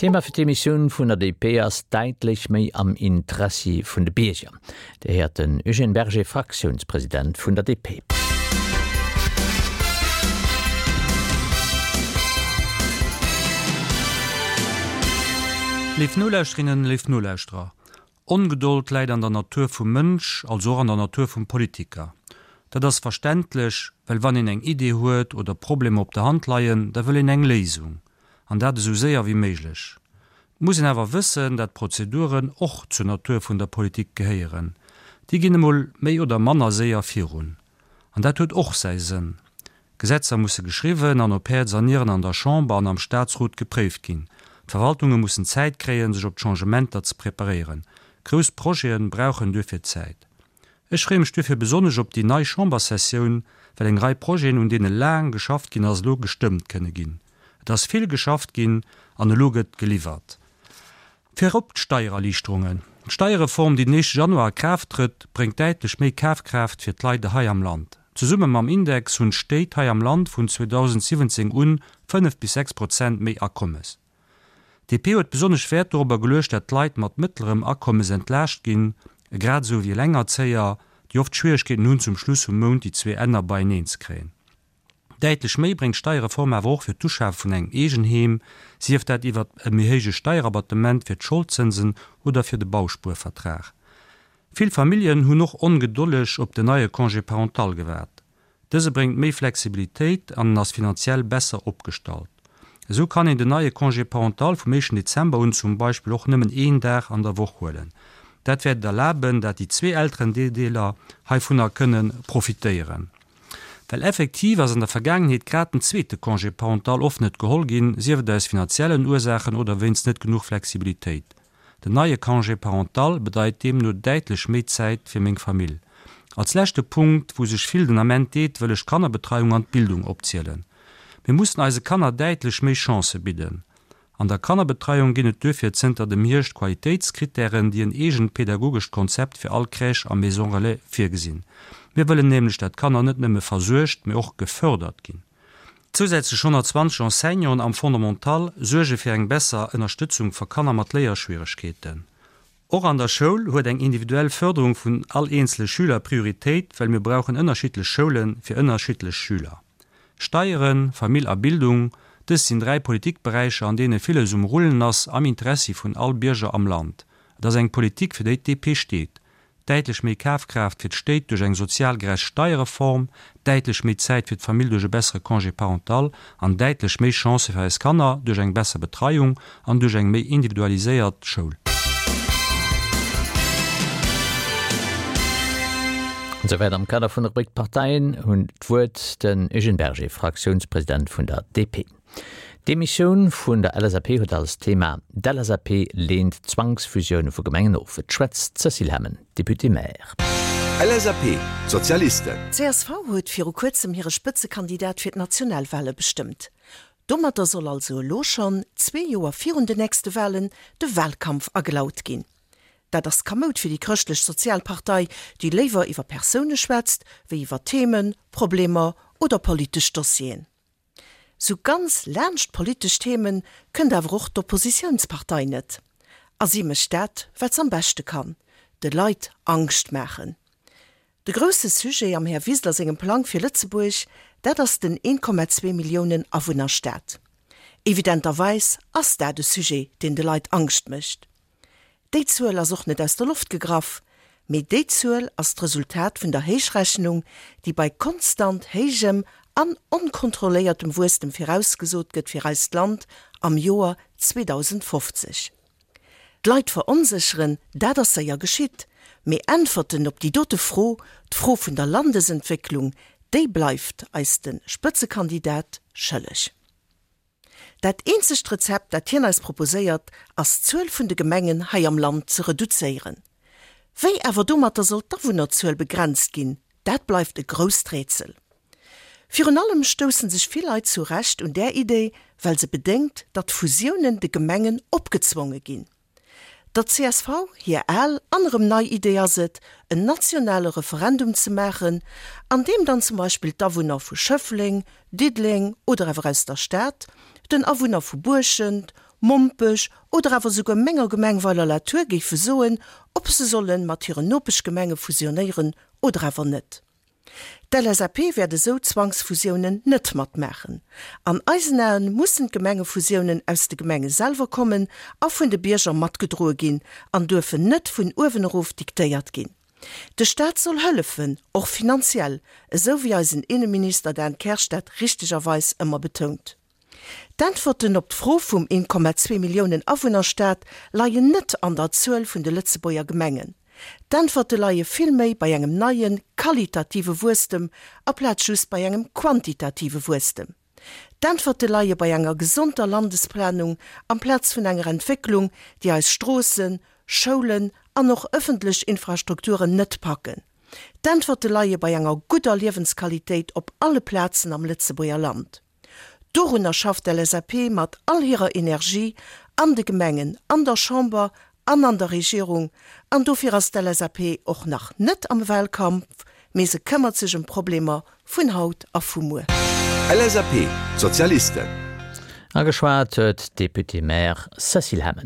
Thema fir d'Emissioun vun der DP ass däitlech méi am Interessi vun de Bierger. Dir héiert den Eugène Berger, Fraktiounspresident vun der DP. Léif Nolauschterinnen, léif Nolauschterer, Ongedold läit an der Natur vum Mënsch, also och an der Natur vum Politiker. Dat ass verständlech, well wann een eng Idee huet oder Problemer op der Hand leien, da wëll een eng Léisung, an dat esou séier wéi méiglech. Et muss een awer wëssen, dat Prozeduren och zur Natur vun der Politik gehéieren. Déi ginn emol méi oder manner séier virun. An dat huet och säi Sënn. Gesetzer musse geschriwwen an op Häerz an Nieren an der Chamber an am Staatsrot gepréift ginn. D'Verwaltunge mussen Zäit kréien, sech op d'Changementer ze preparéieren. Grouss Projete brauchen duerfir Zäit. Ech freeë mech duerfir besonnesch op déi nei Chamberssessioun, well eng Rei Projeten, un deene laang geschafft ginn ass, elo gestëmmt kënne ginn. Et ass vill geschafft ginn an elo gëtt geliwwert. Virop d'Steiererliichterungen. D'Steierreform, déi den éischte Januar a Kraaft trëtt, bréngt däitlech méi Kafkraaft fir d'Leit hei am Land. Zesumme mam Index hunn d'Stéit hei am Land vun 2017 un 5 bis 6 Prozent méi Akommes. DP huet besonnesch Wäert dorobber geluecht, dat d'Leit mat mëttlerem Akommes entlaascht ginn, grad esou wéi Elengerzéier, déi oft Schwieregkeeten hunn, zum Schluss vum Mount déi zwee Enner beieneen ze kréien. Däitlech méi bréngt d'Steierreform awer och fir d'Uschafe vun engem Eegenheem, sief dat iwwert e méi héije Steierabattement fir d'Scholdzënsen oder fir de Bauspuervertrag. Vill Familljen hunn och ongedolleg op den neie Congé parental gewaart. Dëse bréngt méi Flexibilitéit an en ass finanziell besser opgestallt. Esou kann een den neie Congé parental vum éischten Dezember un zum Beispill och nëmmen een Dag an der Woch huelen. Dat wäert et erlaben, dat déi zwee Elterendeeler heivunner kënne profitéieren. Well effektiv ass an der Vergaangenheet grad den zweete Congé parental oft net geholl ginn, sief et aus finanziellen Ursaachen oder wéinst net genuch Flexibilitéit. Den neie Congé parental bedeit deemno däitlech méi Zäit fir meng Famill. Als leschte Punkt, wou sech vill den Ament deet, wëll ech d'Kannerbetreiung an d'Bildung opzielen. Mir mussen eise Kanner däitlech méi Chancë bidden. An der Kannerbetreiung ginn et duerfir zënter dem Hierscht Qualitéitskrittären, déi en eegent pedagogescht Konzept fir all Crèche a Maison Relais virgesinn. Mir wëllen nämlech, dat d'Kanner net nëmme versuergt, mee och gefördert ginn. Zousätzlech 120 Enseignanten am Fondamental suerge fir eng besser Ënnerstëtzung fer Kanner mat Léierschwieregkeeten. Och an der Schoul huet eng individuell Förderung vun all eenzele Schüler Prioritéit, well mir brauchen ënnerschiddlech Schoule fir ënnerschiddlech Schüler. Steieren, Famill a Bildung, dës sinn 3 Politikberäicher an deene villes um Rullen ass am Interessi vun all Bierger am Land. Et ass eng Politik fir déi d'DP steet. Däitlech méi Kafkraaft fir d'Stéit duerch eng sozial gerecht Steierreform, däitlech méi Zäit fir d'Famill duerch e bessere Congé parental an däitlech méi Chancë fir eis Kanner duerch eng besser Betreiung an duerch eng méi individualiséiert Schoul. An esouwäit am Kader vun der Rubrik D'Parteien hunn d'Wuert, den Eugène Berger, Fraktiounspresident vun der DP. D'Demissioun vun der LSAP huet als Thema D'LSAP leent Zwangsfusioune vu Gemengen of. Et schwätzt d'Cécile Hemmen, Députée-Maire. LSAP, D'Sozialisten. Csv huet viru kuerzem hire Spëtzekandidat fir d'Nationalwale bestëmmt. Domatter soll also elo schonn, zwee Joer virun den nächste Walen, de Walkampf agelaut ginn. Dat ass kamoud fir déi Chrëschtlech-Sozial Partei, déi léiwer iwwer Persoune schwätzt, wéi iwwer Themen, Problemer oder politesch Dossieren. Sou ganz laanscht politesch Themen kënnt awer och d'Oppositiounspartei net. A si mécht dat, wat s'am beschte kann, de Leit Angscht maachen. De grousse Sujet am Här Wiseler sengem Plang fir Lëtzebuerg, dat ass den 1,2 Milliounen Awunnerstaat. Evidenterweis ass dat e Sujet, deen de Leit Angscht mécht. Déi Zuel ass och net aus der Loft gegraff, mee déi Zuel ass d'Resultat vun der Héichrechnung, déi bei konstant héijem an onkontrolléiertem Wuesstem virausgesot gëtt fir eist Land am Joer 2050. D'Leit veronsécheren, dat ass séier geschitt, mee Äntwerten op déi dote Fro, d'Fro vun der Landesentwécklung, déi bleift eis de Spëtzekandidat schëlleg. Dat eenzegt Rezept, dat hien eis proposéiert, ass d'Zuel vun de Gemengen hei am Land ze reduzéieren. Wéi awer domatter soll d'Awunnerzuel begrenzt ginn, dat bleift e grousst Rätsel. Virun allem stoussen sech vill Leit zu Recht un där Idee, well se bedéngt, datt Fusiounen de Gemengen opgezwonge ginn. Der csv hir al an erëm nei Idee ass et, en nationale Referendum ze maachen, an deem dann zum Beispill d'Awunner vu Schëffleng, Diddeleng oder awer aus der Stad den Awunner vu Buerschent, Mompech oder awer souguer menger Gemeng Weiler-la-Tour géife soen, ob se solle mat hiren Nopeschgemenge fusionéieren oder awer net. D'LSAP wäert esou Zwangsfusiounen net matmaachen. An eisen Aen mussen d'Gemengefusiounen aus de Gemenge selwer kommen a vun de Bierger matgedroe ginn an duerfen net vun uewen erof diktéiert ginn. De Staat soll hëllefen, och finanziell, esou wéi eisen Inneminister Dan Kersch dat richtegerweis ëmmer betount. D'Äntwerten op d'Fro vum 1,2 Milliounen Awunnerstaat leien net an der Zuel vun de Lëtzebuerger Gemengen. D'Äntwerte leie vill méi bei engem neie qualitative Wuesstem aplaz just bei engem quantitative Wuesstem. D'Äntwerte leie bei enger gesonter Landesplanung amplaz vun enger Entwécklung, déi eis Stroossen, Schoulen an och ëffentlech Infrastrukturen net packen. D'Äntwerte leie bei enger gudder Liewensqualitéit op alle Plazen am Lëtzebuerger Land. Dorunner schafft d'LSAP mat all hirer Energie an de Gemengen, an der Chamber an an der Regierung. An dofir ass d'LSAP och nach net am Wahlkampf, mee se këmmert sech ëm d'Problemer vun haut a vu muer. LSAP, D'Sozialisten. Ageschwat huet d'Députée-maire Cécile Hemmen.